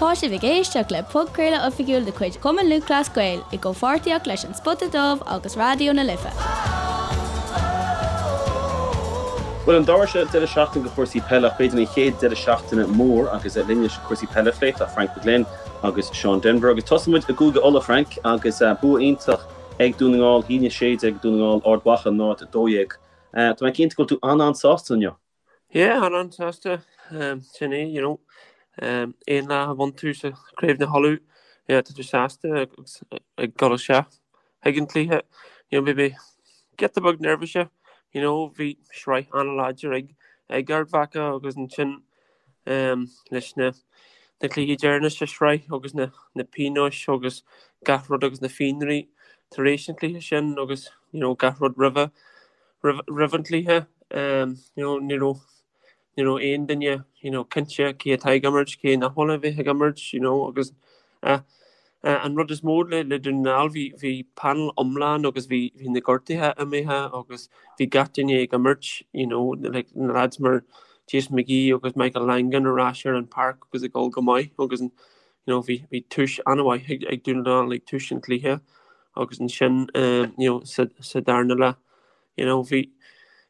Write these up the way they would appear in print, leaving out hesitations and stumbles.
Tá sibh ag éisteacht le podchraoladh oifigiúil de chuid Chumann Lúthchleas Gael i gcomhpháirtíocht leis An Spota Dubh agus Raidió na Life. Bhuel, an dara deireadh seachtaine de chúrsaí peile, ach b'fhéidir an chéad deireadh seachtaine mór agus linn leis cúrsaí peile a phlé, tá Frank McGlynn agus Seán Denvir. Agus tosóidh muid i gCúige Uladh, Frank, agus bua iontach ag Dún na nGall, 1-16 ag Dún na nGall, Ard Mhacha 0-12. Tá mé cinnte go bhfuil tú an-an-sásta inniu. Yeah, an-an-sásta. Sin é, you know. Aon lá a bhain tú sa Craobh na hUladh, yeah, tá tú sásta agus ag dul isteach chuig an cluiche. You know, maybe giota beag neirbhíse, you know, bhí sraith an-láidir ag ag Ard Mhacha agus ansin leis na na cluichí deireanach sa sraith agus na na pionóis agus gach rud agus na fionraí tar éis an chluiche sin agus, you know, gach rud roimhe. roimh an chluiche. You know, ní raibh, ní raibh aon duine, you know, cinnte cé atá ag imirt, cé nach bhfuil a bheith ag imirt, you know, agus an rud is mó le, le Dún na nGall, bhí, bhí panel iomlán agus bhí, bhí na gortuithe imithe agus bhí gach duine ag imirt, you know, like na lads mar Jason McGee agus Michael Langan ar ais ar an páirc agus ag dul go maith agus you know, bhí, bhí tús an-mhaith ag, ag Dún na nGall ag tús an chluiche agus ansin, you know, sa, sa darna leath, You know, bhí,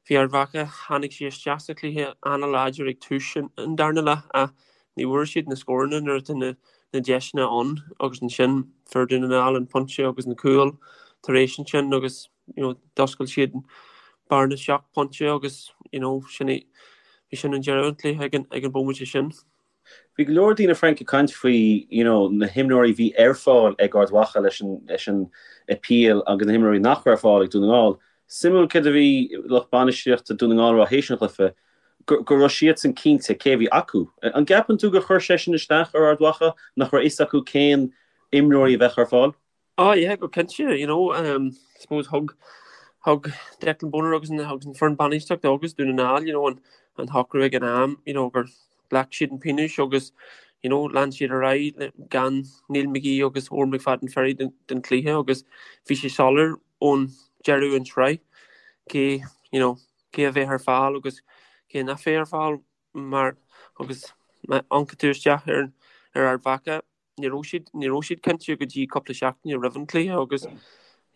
bhí Ard Mhacha, tháinig siad isteach sa chluiche an-láidir ag tús an darna leath ach ní bhfuair siad na scóranna nuair atá na, na deiseanna ann agus ansin fuair Dún na nGall an pointe agus an cúl tar éis ansin agus, you know, d'oscail siad bearna seacht bpointe agus, you know, sin é, bhí sin an deireadh an chluiche ag an, ag an bhomaite sin. Bhí go leor daoine Frank ag caint faoi you know na himreoirí a bhí ar fáil ag Ard Mhacha leis an leis an appeal agus na himreoirí nach raibh ar fáil ag Dún na nGall. Suimiúil céard a bhí lucht bainistíochta Dún na nGall a rá théis an chluiche, go go raibh siadsan cinnte cé a bhí acu. An gceapann tú gur chuir sé sin isteach ar Ard Mhacha nach raibh fhios acu cén imreoirí a bheadh ar fáil? Oh yeah, go cinnte, you know, um, suppose thug thug Declan Bonner agus an agus an foireann bainistíochta agus Dún na nGall, you know, an an shocrú ag an am, you know, gur ghlac siad an pionós agus, you know, lean siad ar aghaidh gan Neil McGee agus Odhrán McFadden Ferry den, den chluiche agus bhí sé soiléir ón deireadh an tsraith cé, you know, cé a bheadh ar fáil agus cé nach bheadh ar fáil mar agus má amharcann tú isteach ar ar Ard Mhacha ní raibh siad, ní raibh siad cinnte go dtí cúpla seachtaine roimh an cluiche agus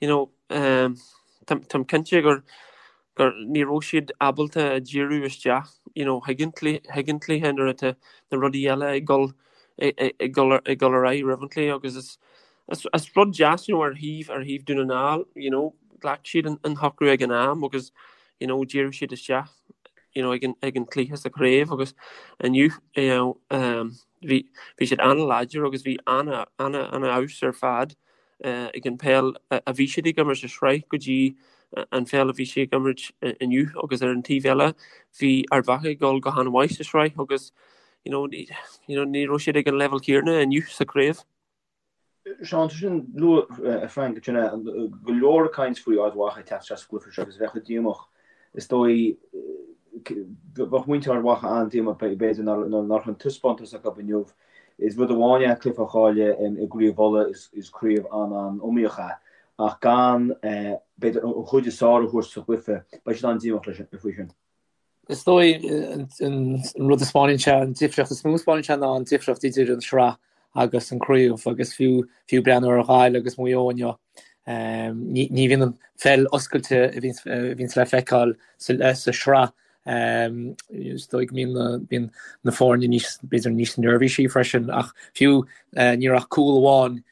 you know um, táim cinnte gur gur ní raibh siad ábalta a díriú isteach you know chuig an cluiche chuig an cluiche nuair atá na rudaí eile ag dul ag dul ag dul ar aghaidh roimh an cluiche agus is is, is rud deas you know, ar thaobh ar thaobh Dún na nGall you know, ghlac siad an, an shocrú ag an am agus you know, dhírigh siad isteach you know, ag an, ag an cluiche sa chraobh agus inniu you know, um, Bhí bhí siad an-láidir agus bhí an-fheabhas ar fad ag an peil a bhí siad ag imirt sa sraith go dtí an pheil a bhí siad ag imirt inniu agus ar an taobh eile bhí Ard Mhacha ag dul go han-mhaith sa sraith agus you know ní raibh siad ag an leibhéal céanna inniu sa chraobh. Seán, tá sin luaite Frank ansin go leor caint faoi Ard Mhacha ag teacht isteach sa gcluiche seo agus bheadh siad díomách. Is dóigh bheadh muintir Ard Mhacha an-díomách b'fhéidir nach raibh an taispeántas acu inniu. Is rud amháin é cluiche a chailleadh i gCraobh Uladh, is craobh an-an-iomaíoch é, ach gan b'fhéidir an chuid is fearr a thabhairt sa chluiche, beidh siad an-díomách faoi sin. Is dóigh an rud a 'spáineann sé, an difríocht is mó a 'spáineann sé ná an difríocht idir an sraith agus an craobh agus fiú fiú breathnú ar Ghaillimh agus Maigh Eo inniu, ní ní bhíonn an pheil oscailte a bhíonns a bhíonns le feiceáil sa sa sraith. Is dóigh go mbíonn na bíonn na foirne níos b'fhéidir níos neirbhísí freisin ach fiú ní raibh ach cúl amháin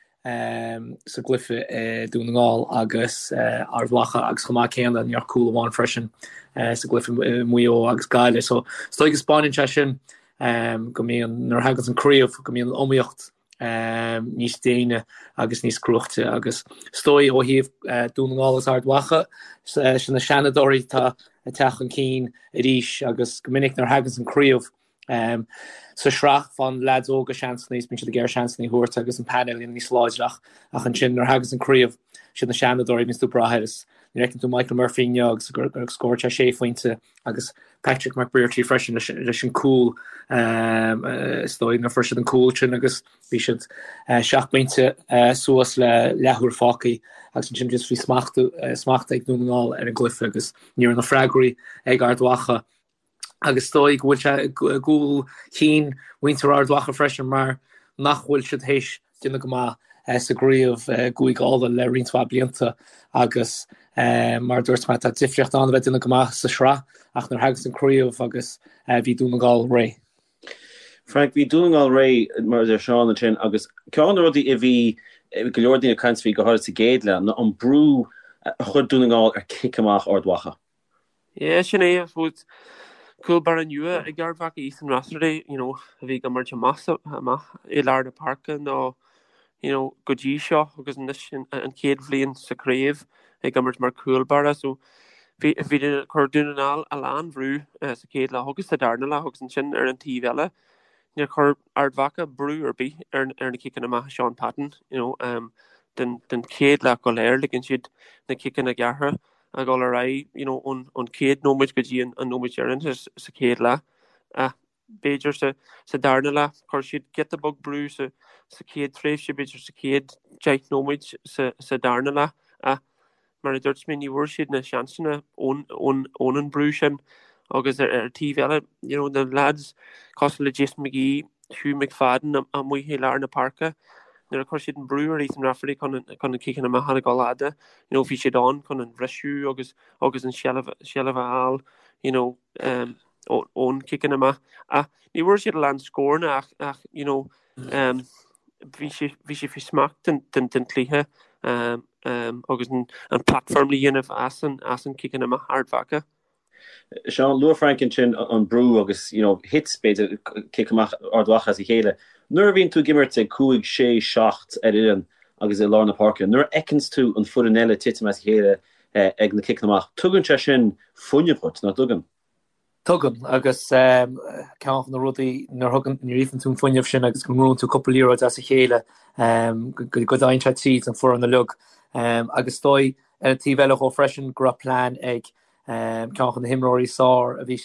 sa gcluiche i Dún na nGall agus Ard Mhacha agus chomh maith céanna ní raibh ach cúl amháin freisin sa gcluiche i Maigh Eo agus Gaillimh. So is dóigh go 'spáineann sé sin go mbíonn nuair a thaganns an craobh go mbíonn an iomaíocht níos déine agus níos cruaichte agus is dóigh ó thaobh Dún na nGall agus Ard Mhacha sin na seanadóirí atá ag teacht chun cinn arís agus go minic nuair a thaganns an craobh Sa sraith, faigheann leaids óga seansanna is bíonn siad ag iarraidh seansanna a thabhairt agus an painéal níos láidre ach ach ansin nuair a thaganns an craobh, siad na seanadóirí a bhíonns tú ag brath air is nuair a fheiceann tú Michael Murphy inniu agus gur scóráil sé sé phointe agus Patrick McBrearty freisin leis leis an cúl is dóigh nuair a fuair siad an cúl sin agus bhí siad seacht bpointe suas le leathuair fágtha agus ansin just bhí smacht smacht ag Dún na nGall ar an gcluiche agus ní raibh na freagraí ag Ard Mhacha agus is dóigh go bhfuil sé i gcúl chinn mhuintir Ard Mhacha freisin mar nach bhfuil siad théis déanamh go maith sa gcraobh i gCúige Uladh le roinnt mhaith blianta agus mar a dúirt mé tá difríocht ann a bheith ag déanamh go maith sa sraith ach nuair a thagas an craobh agus bhí Dún na nGall réidh. Frank, bhí Dún na nGall réidh, mar a deir Seán ansin, agus ceann de na rudaí a bhí go leor daoine ag caint faoi, go háirid sa gcéad leath, ná an brú a chuir Dún na nGall ar cic amach Ard Mhacha. Yeah, sin é, I suppose, cúl báire nua ag Ard Mhacha, Ethan Rafferty, you know, a bhí ag imirt amach amach i lár na páirce nó, you know, go dtí seo agus anois an chéad bhliain sa chraobh ag imirt mar chúl báire. So bhí bhí chuir Dún na nGall a lán bhrú sa chéad leath agus sa darna leath agus ansin ar an taobh eile níor chuir Ard Mhacha brú ar bith ar ar na ciceanna amach Sean Patton, you know, um, den den chéad leath go léir ligean siad na ciceanna gearrtha a dhul ar aghaidh, you know, ón ón chéad nóiméad go dtí an an nóiméad deireanach sa chéad leath. Ach b'fhéidir sa sa darna leath chuir siad giota beag brú sa sa chéad tréimhse, b'fhéidir sa chéad 10 nóiméad sa sa darna leath. Ach mar a dúirt mé, ní bhfuair siad na seansanna ón ón ón an brú sin. Agus ar ar taobh eile, you know, na lads cosúil le Jason McGee, Hugh McFadden amuigh i lár na páirce, nuair a chuir siad an brú ar Ethan Rafferty chun an chun an ciceanna amach a dhul fhada, you know, bhí siad ann chun an bhriseadh agus agus an seilbh seilbh a fháil, you know, um, ón ciceanna amach. Ach ní bhfuair siad a lán scóranna ach ach you know, um, bhí sé bhí sé faoi smacht den den den chluiche um, um, agus an an platform le dhéanamh as an as an ciceanna amach Ard Mhacha. Seán, luaigh Frank ansin an brú agus you know thit b'fhéidir cic amach Ard Mhacha as a chéile. Nuair a bhíonn tú ag imirt ag 5, 6, 7 ar fhoireann agus i lár na páirce, nuair a fheiceanns tú an foireann eile titim as a chéile ag na ciceanna amach, tugann sé sin fuinneamh dhuit, nach dtugann? Tugann, agus ceann de na rudaí nuair thugann, nuair a fhaigheann tú an fuinneamh sin agus go ngnóthaíonn tú cúpla liathróid as a chéile, go dtéann sé tríd an foireann uilig. Agus is dóigh, ar an taobh eile dhó freisin, go raibh plean ag Ceann de na himreoirí is fearr a bhí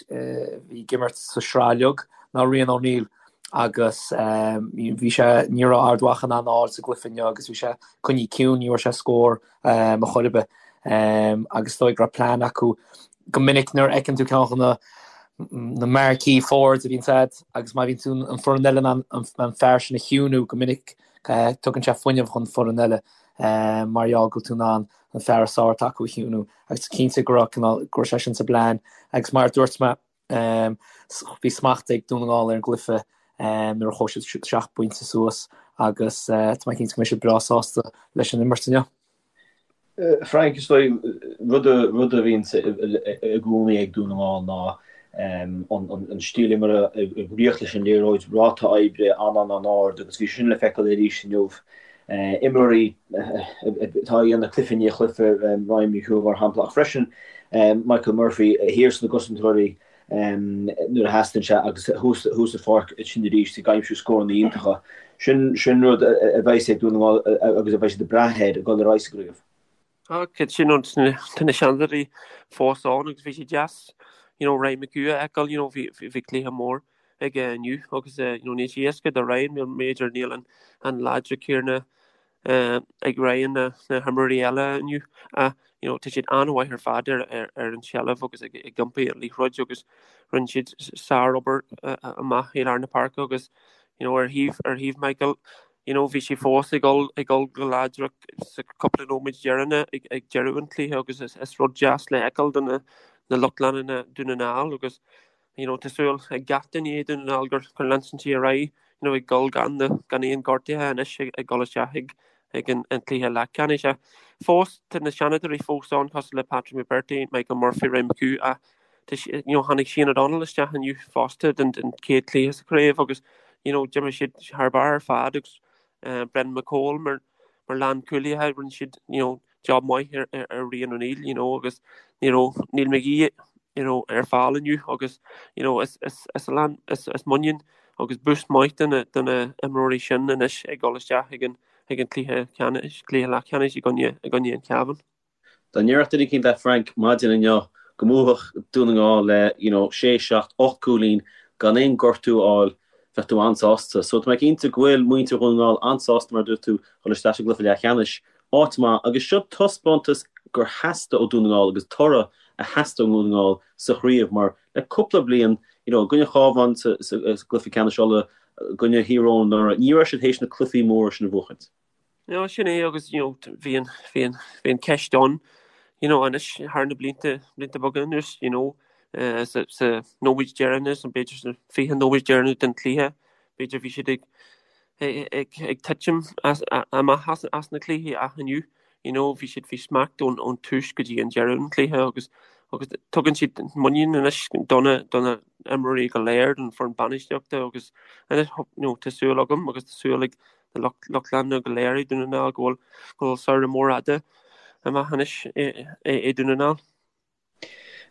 ag imirt sa sraith uilig ná Rian O'Neill agus bhí sé, ní raibh Ard Mhacha in ann a fháil sa gcluiche inniu agus bhí sé coinnithe ciúin, ní raibh sé scór ar chor ar bith agus is dóigh go raibh plean acu. Go minic nuair a fheiceann tú ceann de na na marquee forwards a bhíonn agat agus má bhíonn tú an foireann eile in ann an fear sin a chiúnú go minic tugann sé fuinneamh chun foireann eile mar gheall go bhfuil tú in ann an fear is fearr atá acu a chiúnú agus cinnte go raibh cineál, go raibh sé sin sa bplean agus mar a dúirt mé bhí smacht ag Dún na nGall ar an gcluiche nuair a chuaigh siad 7 bpointe suas agus tá mé cinnte go mbeidh siad breá sásta leis an imirt inniu. Frank, is dóigh, rud rud a bhíonn i gcónaí ag Dún na nGall ná an stíl imeartha ag ritheacht leis an liathróid, ráta oibre an-an-ard agus bhí sin le feiceáil arís inniu. Imreoirí atá ag déanamh cluiche i ndiaidh cluiche, Ryan McHugh mar shampla, ach freisin Michael Murphy thiar sna gcosantóirí nuair a theastaíonn sé agus thuas sa pháirc ansin arís ag aimsiú scóranna iontacha. Sin sin rud a bheidh ag Dún na nGall agus a bheidh siad ag brath air ag dul ar aghaidh sa gcraobh. Tá sin ann, tá na seanadóirí fós ann agus bhí sé deas you know Ryan McHugh a fheiceáil you know bhí bhí cluiche mór aige inniu agus you know níl sé éasca do Ryan b'fhéidir níl an an láidre céanna ag Ryan ná na himreoirí eile inniu ach you know tá siad an-mhaith ar fad ar ar ar an tseilbh agus ag ag iompar an liathróid agus rinne siad sárobair amach i lár na páirce agus you know ar thaobh ar thaobh Michael you know bhí sé fós ag dul ag dul go láidir sa cúpla nóiméad deireanach ag ag deireadh an chluiche agus is is rud deas le feiceáil do na na lucht leanúna Dún na nGall agus you know tá súil ag gach duine i Dún na nGall gur gur leanfaidh sé ar aghaidh you know ag dul gan na gan aon gortuithe anois ag ag dul isteach ag ag an an cluiche leathcheannais. Ach fós tá na seanadóirí fós ann cosúil le Patrick McBrearty, Michael Murphy, Ryan McHugh ach tá you know tháinig Shane O'Donnell isteach inniu fosta den den chéad chluiche sa chraobh agus you know d'imir siad thar barr ar fad agus uh, Brendan McCole mar mar lánchúlaithe rinne siad you know job maith ar ar ar Rian O'Neill you know agus you know Neil McGee you know ar fáil inniu agus you know is is is a lán is is muinín agus boost maith do na do na imreoirí sin anois ag dul isteach ag an ag an cluiche ceannais cluiche leathcheannais i gcoinne i gcoinne an Chabháin. Dá ndéarfadh duine eicínt leat Frank maidin inniu go mbuafadh Dún na nGall le you know sé, seacht, 8 gcúilín gan aon gortú a fháil bheadh tú an-sásta. So tá mé cinnte go bhfuil muintir Dhún na nGall an-sásta mar a dúirt tú dhul isteach sa gcluiche leathcheannais. Áit maith agus seo taispeántas gur theastaigh ó Dún na nGall agus toradh a theastaigh ó Dhún na nGall sa chraobh mar le cúpla bliain you know i gcoinne Chábháin sa gcluiche ceannais Uladh. i gcoinne Thír Eoghain anuraidh, ní raibh siad théis na cluichí móra sin a bhuachaint. No, sin é agus you know bhí an bhí an bhí an ceist ann you know anois thar na blianta blianta beaga anuas you know eh, sa sa nóiméad deireanach nó b'fhéidir sna 20 nóiméad deireanach den chluiche b'fhéidir bhí siad ag ag ag titim as amach as as na cluichí ach inniu you know bhí siad faoi smacht ón ón tús go dtí an deireadh an chluiche agus agus tugann siad muinín anois do na do na imreoirí go léir don foireann bainistíochta agus anois you know tá súil agam agus tá súil ag na lucht leanúna go léir i Dún na nGall go bhfuil go bhfuil samhradh mór fhada amach anois i Dún na nGall.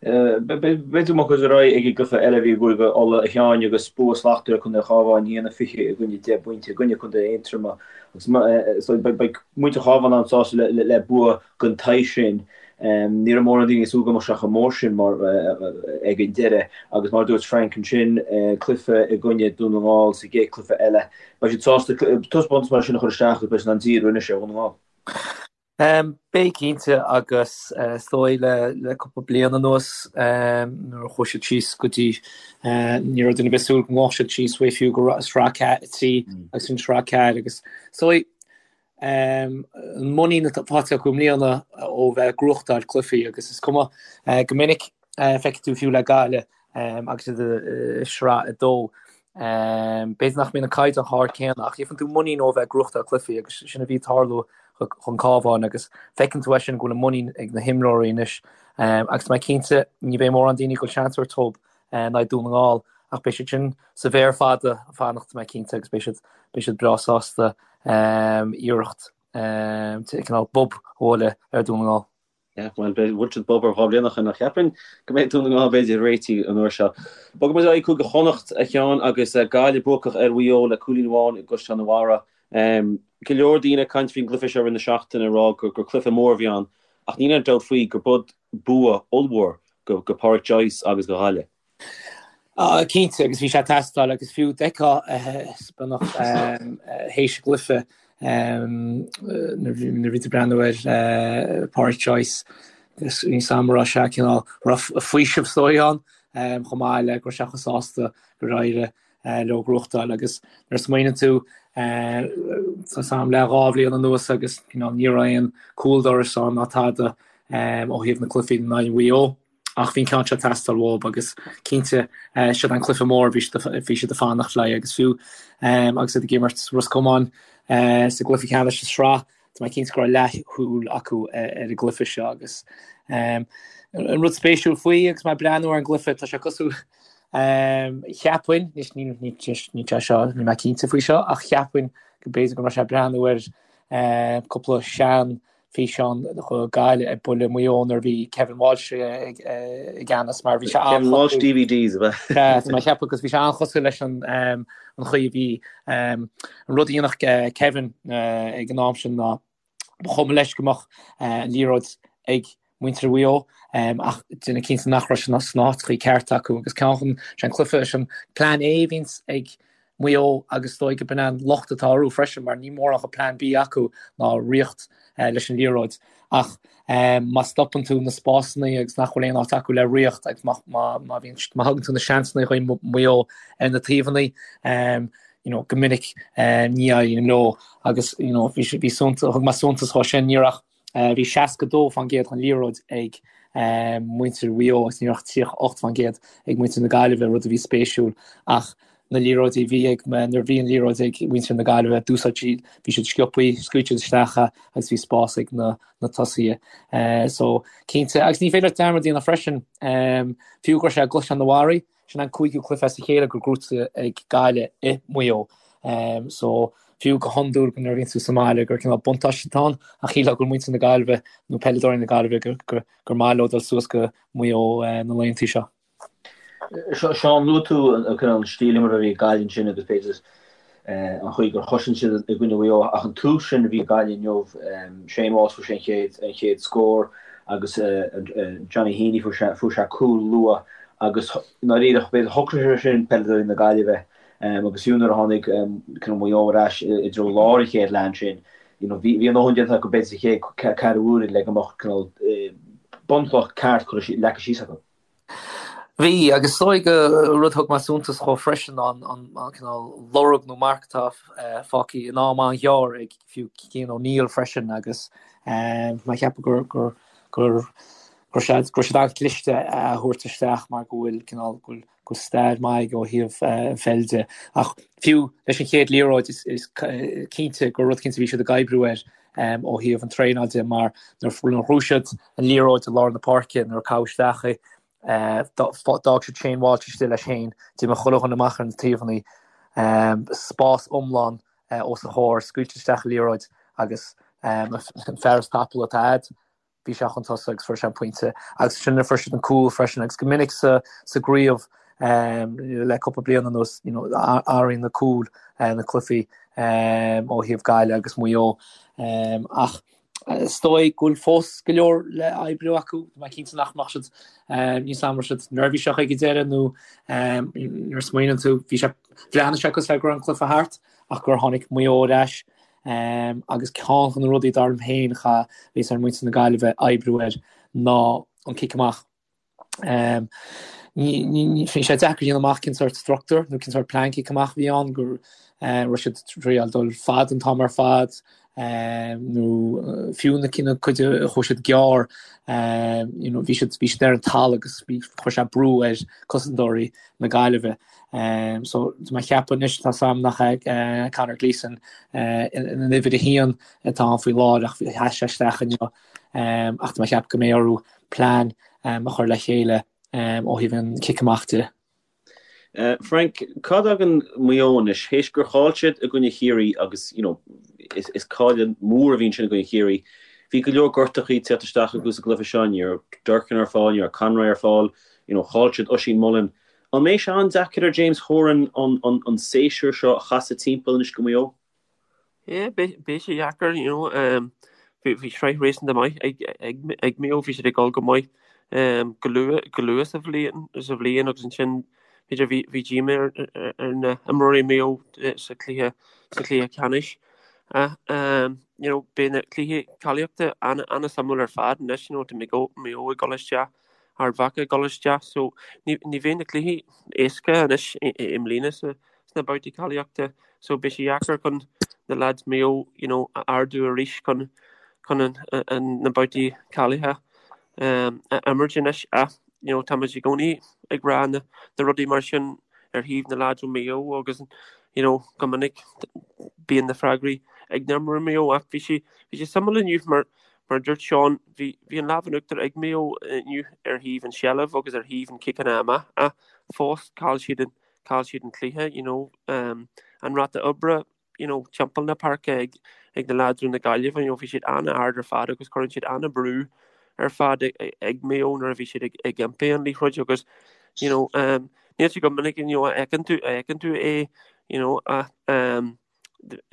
B'fhéidir go mbeadh ar aghaidh ag an gcluiche eile a bhí i gCúige Uladh a Sheáin agus bua slachtmhar ag Contae an Chabháin, 1-20 i gcoinne 10 bpointe i gcoinne Contae Aontroma agus beidh muintir an Chabháin an-sásta le bua den tsaghas sin. Ní raibh mórán daoine ag súil go mbeadh sé chomh mór sin mar ag an deireadh agus mar a dúirt Frank ansin, cluiche i gcoinne Dún na nGall sa gcéad cluiche eile. Beidh siad sásta taispeántas mar sin a chur isteach agus beidh siad in ann díriú anois ar Dhún na nGall. Beidh cinnte agus is dóigh le cúpla bliain anuas nuair a chuaigh siad síos go dtí ní raibh duine ar bith ag súil go ngabhfadh siad síos uaidh fiú go sraith 3 agus an sraith 4 agus is dóigh an muinín atá faighte acu i mbliana ó bheith ag gnóthachtáil cluichí agus is cuma go minic feicfidh tú fiú le Gaillimh agus iad i sraith 2 b'fhéidir nach mbíonn an caighdeán chomh hard céanna ach gheibheann tú muinín ó bheith ag gnóthachtáil cluichí agus sin a bhí ag tarlú chun Cabháin agus feiceann tú é sin go bhfuil an muinín ag na himreoirí anois agus tá mé cinnte ní bheidh mórán daoine ag dul seans a thabhairt dóibh in aghaidh Dún na nGall ach beidh siad sin sa mhéar fada ag fanacht tá mé cinnte agus beidh siad beidh siad breá sásta iarracht cineál bob a bhualadh ar Dún na nGall. Yeah, bhuel, bhuail siad bob orthu 2 bhliain ó shin ach cheapfainn go mbeidh Dún na nGall b'fhéidir réitithe an uair seo. Bogfaidh muid ar aghaidh Cúige Chonnacht, a Sheáin, agus Gaillimh buacach ar Mhaigh Eo le cúilín amháin i gCaisleán an Bharraigh. Go leor daoine ag caint faoin gcluiche seo i rith na seachtaine ag rá gur cluiche mór a bhí ann ach níl aon dabht faoi gur b'shin bua ollmhór go Pádraic Joyce agus go Ghaillimh. Cinnte, agus bhí sé ag teastáil agus fiú d'fheicfeá beagnach théis an gcluiche nuair a bhí tú ag breathnú ar Pádraic Joyce agus níl a fhios agam an raibh sé cineál raibh faoiseamh is dóigh ann chomh maith le go raibh sé chomh sásta gur éirigh leo gnóthachtáil agus nuair a smaoineann tú tá a fhios agam le 2 bhliain anuas agus cineál ní raibh aon cúl dorais ann ná tada ó thaobh na cluichí in aghaidh Mhaigh Eo ach bhí an ceann seo ag teastáil uathu agus cinnte siod an cluiche mór bhí bhí siad ag fanacht leis agus fiú agus iad ag imirt Ros Comáin sa gcluiche ceannais sa sraith Tá mé cinnte go raibh leathshúil acu ar an gcluiche seo agus an rud spéisiúil faoi agus mé ag breathnú ar an gcluiche, tá sé cosúil, cheapfainn, anois ní sé seo, níl mé cinnte faoi seo, ach cheapfainn go b'fhéidir go raibh sé ag breathnú ar cúpla sean físeán de Ghaillimh ag bualadh Maigh Eo nuair a bhí Kevin Walsh i gceannas mar bhí sé Kevin Walsh DVDs ab ea? Tá mé ag ceapadh agus bhí sé an-chosúil leis an chaoi a bhí an rud a dhéanfadh Kevin ag an am sin ná ba chuma leis go mbeadh an liathróid ag muintir Mhaigh Eo ach déanamh cinnte nach raibh sé sna háiteachaí cearta acu agus ceann chun sé an cluiche sin plean A a bhíonns ag Maigh Eo agus is dóigh go b'in an locht atá orthu freisin mar níl mórán de plean B acu ná ritheacht leis an liathróid ach má stopann tú na spásanna agus nach bhfuil aon áit acu le ritheacht agus má má bhíonn má thugann tú na seansanna chuig Maigh Eo ar na taobhanna you know go minic ní éiríonn leo agus you know bhí bhí thug mé suntas dhó sin ní raibh Bhí 62% den liathróid ag muintir Mhaigh Eo agus ní raibh ach 38% ag muintir na Gaillimhe, rud a bhí spéisiúil. Ach na liathróidí a bhí ag, nuair a bhí an liathróid ag muintir na Gaillimhe, d'úsáid siad, bhí siad sciobthaí, scaoil siad isteach é agus bhí spás ag na tosaithe. So, cinnte, agus ní féidir leat dearmad a dhéanamh freisin, fiú go raibh sé i gCaisleán an Bharraigh, Sin an cúigiú cluiche as a chéile gur gnóthaithe ag Gaillimh i Maigh Eo. So, fiú go hiondúil nuair a bhíonn tú sa mbaile gur cineál buntáiste atá ann, ach shílfeá go bhfuil muintir na Gaillimhe nó peileadóirí na Gaillimhe gur gur maith leo dul suas go Maigh Eo na laethanta seo. Seán, luaigh tú an cineál stíl imeartha a bhí ag Gaillimh ansin agus b'fhéidir an chaoi gur chosain siad i gcoinne Mhaigh Eo ach an tús sin a bhí ag Gaillimh inniu, Shane Walsh fuair sé an chéad an chéad scór agus Johnny Heaney fuair sé fuair sé cúl luath agus i ndáiríre b'fhéidir shocraigh sé sin peileadóirí na Gaillimhe agus fiú nuair a tháinig cineál Maigh Eo ar ais i dtreo lár an chéad leath ansin you know bhí bhí a ndóthain déanta acu b'fhéidir sa chéad ceathrú uaire le go mbeadh cineál bunchloch ceart curtha leagtha síos acu. Bhí, agus is dóigh go rud a thug mé suntas dhó freisin ná an cineál lorg nó marc atá fágtha in am an-ghearr ag fiú Cian O'Neill freisin agus mé ag ceapadh gur gur gur go raibh siad an-chliste é a thabhairt isteach mar go bhfuil cineál go bhfuil go bhfuil stair maith aige ó thaobh an pheil de. Ach fiú leis an chéad liathróid is cinnte gur rud cinnte bhí siad ag oibriú air ó thaobh an traenáil de mar nuair a ghnóthaigh siad an liathróid i lár na páirce nuair a caitheadh isteach í d'fhág siad Shane Walsh istigh leis féin, d'imigh chuile dhuine amach ar na taobhanna, spás iomlán os a chomhair, scaoilte isteach an liathróid agus an fear is tapúla atá a'd, bhí sé chun tosaigh agus fuair sé an pointe. Agus ansin fuair siad an cúl freisin agus go minic sa sa gcraobh le cúpla bliain anuas you know athraíonn na cúil na cluichí ó thaobh Gaillimh agus Maigh Eo. Ach is dóigh go bhfuil fós go leor le oibriú acu. Tá mé cinnte nach mbeadh siad níos am raibh siad neirbhíseach ag an deireadh nó nuair a smaoiníonn tú bhí sé bhreathnaigh sé cosúil le go raibh an cluiche thart ach gur tháinig Maigh Eo ar ais Agus ceann de na rudaí dar liom féin a bheas ar muintir na Gaillimhe oibriú air ná an cic amach. Bhí sé deacair a dhéanamh amach cén sórt struchtúr nó cén sórt plean cic amach a bhí ann, go raibh siad ag triail dul fada an t-am ar fad nó fiú na cinn cuid a chuaigh siad gearr, you know, bhí siad bhí siad ar an talamh agus bhí chuir sé brú ar cosantóirí na Gaillimhe. So tá mé ag ceapadh anois tá a fhios a'm nach é Conor Gleeson an uimhir a haon atá ann faoi láthair ach sheas sé isteach inniu ach tá mé ag ceapadh go mbeidh orthu plean a chur le chéile ó thaobh an cic amach de. Frank, cá dtagann Maigh Eo anois? Théis gur chaill siad i gcoinne Chiarraí agus you know is cailleadh mór a bhí ansin i gcoinne Chiarraí, bhí go leor gortachaí ag teacht isteach acu sa gcluiche seo, ní raibh Durcan ar fáil, ní raibh Conroy ar fáil, you know chaill siad Oisín Mullin. An mbeidh sé an-deacair ar James Horan an séasúr seo a chasadh timpeall anois go Maigh Eo? Yeah, beidh sé deacair, you know. Bhí sraith réasúnta maith ag Maigh Eo, bhí siad ag dul go maith go luath go luath sa bhliain sa bhliain agus ansin b'fhéidir bhí bhí díomá ar ar na himreoirí Maigh Eo sa chluiche sa chluiche ceannais. Ach you know, beidh na cluichí cáilíochta an-suimiúil ar fad anois, you know, tá Maigh Eo ag dul isteach Ard Mhacha ag dul isteach so ní bheidh na cluichí éasca anois i mbliana sna babhtaí cáilíochta so beidh sé deacair chun na lads Maigh Eo you know a ardú arís chun chun an na babhtaí cáilithe a imirt anois ach you know táimid i gcónaí ag rá na na rudaí mar sin ar thaobh na lads ó Maigh Eo agus you know go minic bíonn na freagraí ag na imreoirí Maigh Eo ach bhí sé bhí sé suimiúil inniu mar Mar a dúirt Seán, bhí bhí an lámh in uachtar ag Maigh Eo inniu ar thaobh an seilbh agus ar thaobh an ciceanna amach ach fós chaill siad an chaill siad an cluiche, you know. Um, an ráta oibre, you know, timpeall na páirce ag ag na lads ó na Gaillimhe, you know, bhí siad an-ard ar fad agus cuireann siad an-brú ar fad ag, ag Maigh Eo nuair a bhí siad ag, ag iompar an liathróid agus, you know, um, níl sé go minic you know, a fheiceann tú a fheiceann tú é, you know, ach um,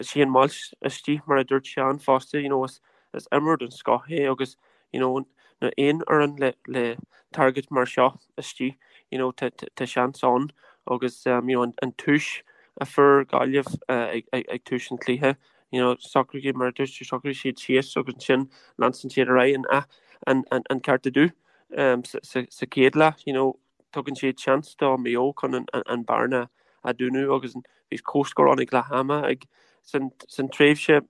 Shane Walsh istigh mar a dúirt Seán fosta you know is is imreoir den scoth é agus you know na aon fhoireann le le target mar seo istigh you know tá tá seans ann agus um, you know an, an tús a fuair Gaillimh uh, ag, ag, ag tús an chluiche you know socraigh mar a dúirt tú socraigh siad síos agus ansin leanann siad ar aghaidh an, an, an, an ceart a do um, sa, sa, sa chéad leath you know tugann siad seans do Maigh Eo chun an bearna a dúnadh agus bhí comhscór ann ag leath ama ag san tréimhse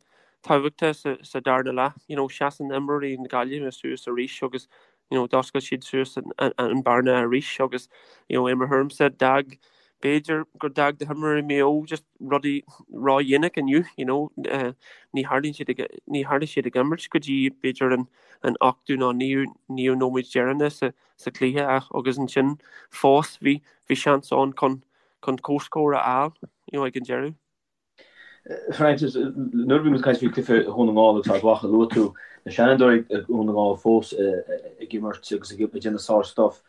tábhachtach sa darna leath. You know, seasann imreoirí na Gaillimhe suas arís agus you know, d'oscail siad suas an bearna arís agus you know, i mo thuairimse d'fhág b'fhéidir gur d'fhág na himreoirí Maigh Eo just rudaí ródhéanach inniu, you know, uh, ní tharlaíonn siad ag, ní tharlaigh siad ag imirt go dtí b'fhéidir an, an ochtú nó naoú, naoú nóiméad deireanach sa, sa chluiche ach agus ansin fós bhí bhí seans ann chun chun comhscór a fháil you know, ag an deireadh. Francis, nuair a bhí muid ag caint faoi chluiche Dhún na nGall agus Ard Mhacha, luaigh tú na seanfhondúirí ag Dhún na nGall fós ag imirt agus ag déanamh sár-stuff.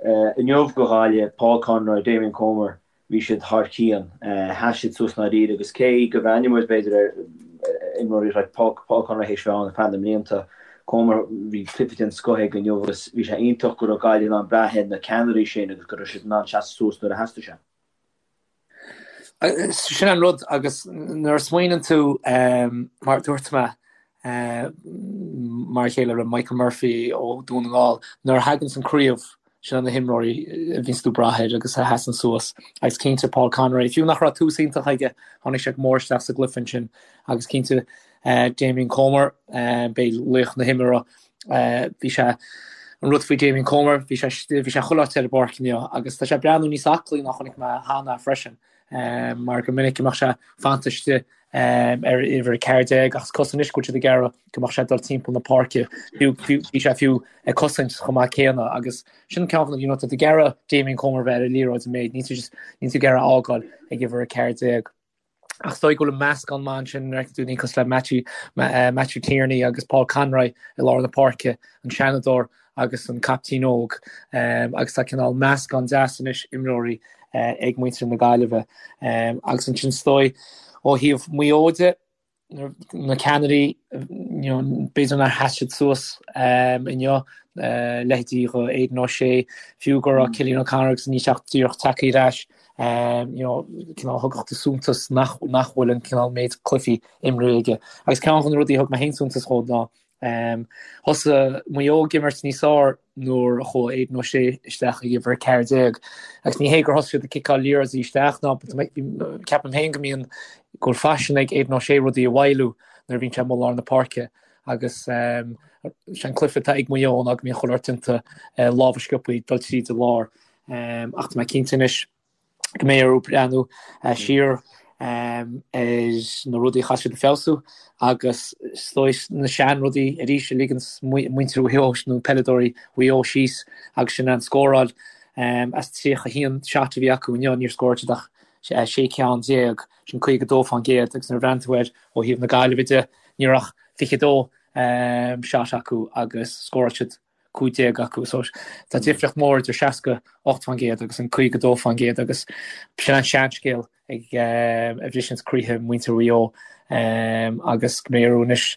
Inniu do Ghaillimh, Paul Conroy, Damien Comer, Bhí siad thar cionn. Sheas siad suas i ndáiríre agus cé go mbreathnaíonn muid, b'fhéidir, ar imreoirí like Paul Conroy théis bheith ann ar feadh na mblianta, Comer, bhí cluiche den scoth aige inniu agus bhí sé iontach go raibh Gaillimh in ann brath ar na ceannairí sin agus go raibh siad in ann seasamh suas nuair a theastaigh sé. Sin an rud agus nuair a smaoineann tú, mar a dúirt mé, mar a chéile le Michael Murphy ó Dhún na nGall, nuair a thaganns an craobh. Sin na himreoirí a bhíonns tú ag brath air agus a sheasann suas. Agus cinnte Paul Conroy, fiú nach raibh tús iontach aige, tháinig sé go mór isteach sa gcluiche ansin. Agus cinnte Damien Comer, b'é laoch na himeartha. Bhí sé, an rud faoi Damien Comer, bhí sé, bhí sé chuile áit ar an bpáirc inniu agus tá sé ag breathnú níos aclaí ná chonaic mé cheana freisin mar go minic go mbeadh sé fanta istigh ar uimhir 14 ach is cosúil anois go bhfuil siad ag iarraidh go mbeadh sé ag dul timpeall na páirce. Bhí sé fiú ag cosaint chomh maith céanna agus sin ceann de na, you know, tá tú ag iarraidh Damien Comer bheith ar an liathróid an méid, níl tú just, níl tú ag iarraidh a fhágáil ag uimhir 14. Ach is dóigh go bhfuil an meascán maith ansin nuair a fheiceann tú daoine cosúil le Matthew, Matthew Tierney agus Paul Conroy i lár na páirce, an seanadóir agus an caiptín óg agus tá cineál meascán deas anois imreoirí ag muintir na Gaillimhe. Agus ansin is dóigh ó thaobh Mhaigh Eo de, na ceannairí, b'fhéidir nár sheas siad suas inniu, leithéidí dho Aidan O'Shea, fiú go raibh Cillian O'Connor agus níl sé ach díreach tagtha ar ais, cineál thugadh tú suntas nach bhfuil an cineál méid cluichí imrithe aige. Agus ceann de na rudaí a thug mé féin suntas dhó ná Thosaigh Maigh Eo ag imirt níos fearr nuair a chuaigh Aidan O'Shea isteach ag uimhir 14. Agus ní hé gur thosaigh siad ag ciceáil liathróidí isteach ná ceapaim féin go mbíonn go bhfuil faisean ag Aidan O'Shea rudaí a mhoilliú nuair a bhíonn sé amuigh i lár na páirce agus sé an cluiche atá ag Maigh Eo ná go mbíonn chuile shórt déanta lámha sciobtha dul tríd an lár. Ach tá mé cinnte anois go mbeidh orthu breathnú siar ar na rudaí a chaithfidh siad a feabhsú agus is dóigh na seanrudaí arís a ligeanns muintir Mhaigh Eo nó peileadóirí Mhaigh Eo síos agus sin an scóráil. As 31 shot a bhí acu inniu níor scóráil siad ach 16 ceann, sin 52% agus nuair a bhreathnaíonn tú air ó thaobh na Gaillimhe de ní raibh ach 22 shot acu agus scóráil siad 15 acu. So tá difríocht mór idir 68% agus an 52% agus sin an seanscéal ag a bhriseanns croíthe muintir Mhaigh Eo agus go mbeidh orthu anois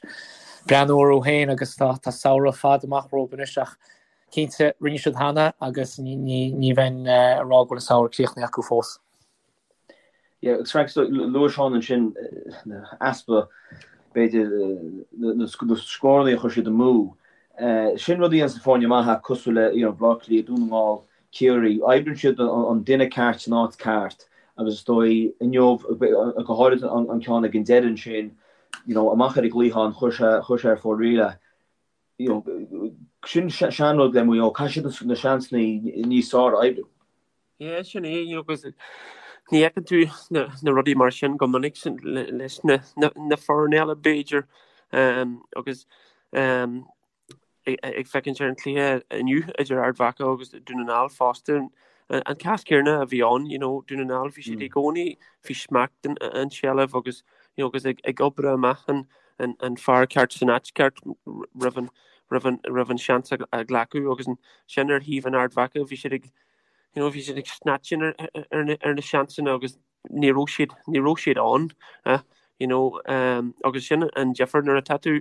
breathnú orthu féin agus tá tá samhradh fada amach rompu anois ach cinnte rinne siad cheana agus ní bheinn ag rá go bhfuil an samhradh críochnaithe acu fós. Yeah, agus Frank, so, luaigh Seán ansin easpa, b'fhéidir, na scóranna a chuir siad amú. Sin rud a dhéananns na foirne maithe cosúil le, you know, Baile Átha Cliath, Dún na nGall, Ciarraí. Oibríonn siad an duine ceart san áit ceart agus is dóigh inniu, go háirid an ceann ag an deireadh ansin, you know, amach ar an gcliathán, chuir sé, chuir sé ar fóraoil é. You know, sin seanrud le Maigh Eo, caithfidh siad na seansanna níos fearr a oibriú. Yeah, sin é, you know, agus ní fheiceann tú na, na rudaí mar sin go minic sin, leis na, na, na foirne eile b'fhéidir um, agus um, ag, ag féachaint ar an cluiche inniu idir Ard Mhacha agus Dún na nGall fosta, an, an cás céanna a bhí ann, you know, Dún na nGall bhí siad i gcónaí faoi smacht an, an tseilbh agus, you know, agus ag, ag obair amach an, an, an fear ceart san áit ceart roimh an, roimh an, roimh an seans a, a ghlacadh agus ansin ar thaobh an Ard Mhacha bhí siad ag you know, bhí siad ag snatching ar, ar, na, ar na seansanna agus ní raibh siad, ní raibh siad ann, eh, you know, um, agus sin an difear nuair atá tú,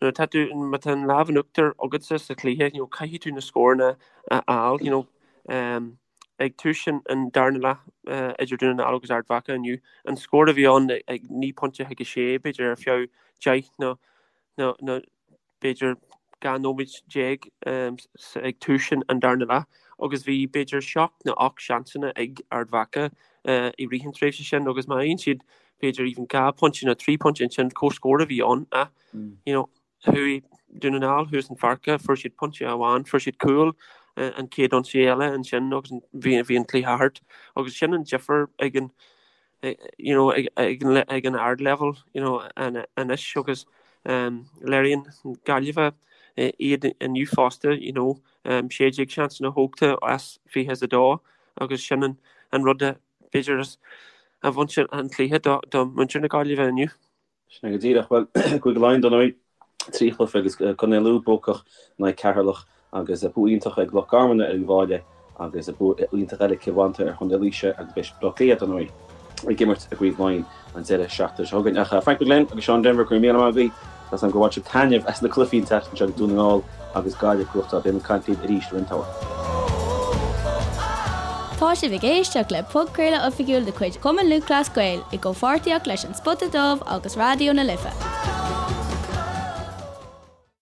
nuair atá tú, má tá an lámh in uachtar agatsa sa chluiche, you know, caithfidh tú na scóranna a fháil, you know, um, ag tús an, an darna leath uh, idir Dún na nGall agus Ard Mhacha inniu, an scór a bhí ann ag 9 pointe chuig 6, b'fhéidir ar feadh 10 nó, nó, nó b'fhéidir 12 nóiméad ag tús an darna leath agus bhí b'fhéidir seacht nó ocht seansanna ag Ard Mhacha i rith an tréimhse sin agus má fhaigheann siad b'fhéidir even 2 phointe nó 3 phointe ansin comhscór a bhí ann ach you know chuaigh Dún na nGall thuas an pháirc fuair siad pointe amháin fuair siad cúl an chéad ionsaí eile ansin agus bhí bhí an cluiche thart agus sin an difear ag an you know, ag, ag, ag an ardleibhéal you know, anois agus um, léiríonn Gaillimhe iad inniu fosta, you know, um, 16 seansanna tógtha as 22 agus sin an, an rud a b'fhéidir a bhain an cluiche do, do muintir na Gaillimhe inniu. Sin é go díreach. Bhuel, Cúige Laighean, dar ndóigh, 3 chluiche agus Contae Lú buacach in aghaidh Ceatharlach agus bua iontach ag Loch Garman ar Uíbh Fhailí agus bua iontach eile ag Cill Mhantáin ar Chontae Laoise agus beidh Baile Átha Cliath, dar ndóigh, ag imirt i gCraobh Laighean an deireadh seachtaine seo chugainn. Ach Frank McGlynn agus Seán Denvir, go raibh míle maith agaibh. Tá 's agam gur bhain sibh taitneamh as na cluichí an tseachtain seo agus Dún na nGall agus Gaillimh ag gnóthachtáil. Beidh muid ag caint libh arís i roinnt tamaill. Tá sibh ag éisteacht le podchraoladh oifigiúil de chuid Chumann Lúthchleas Gael i gcomhpháirtíocht leis An Spota Dubh agus Raidió na Life.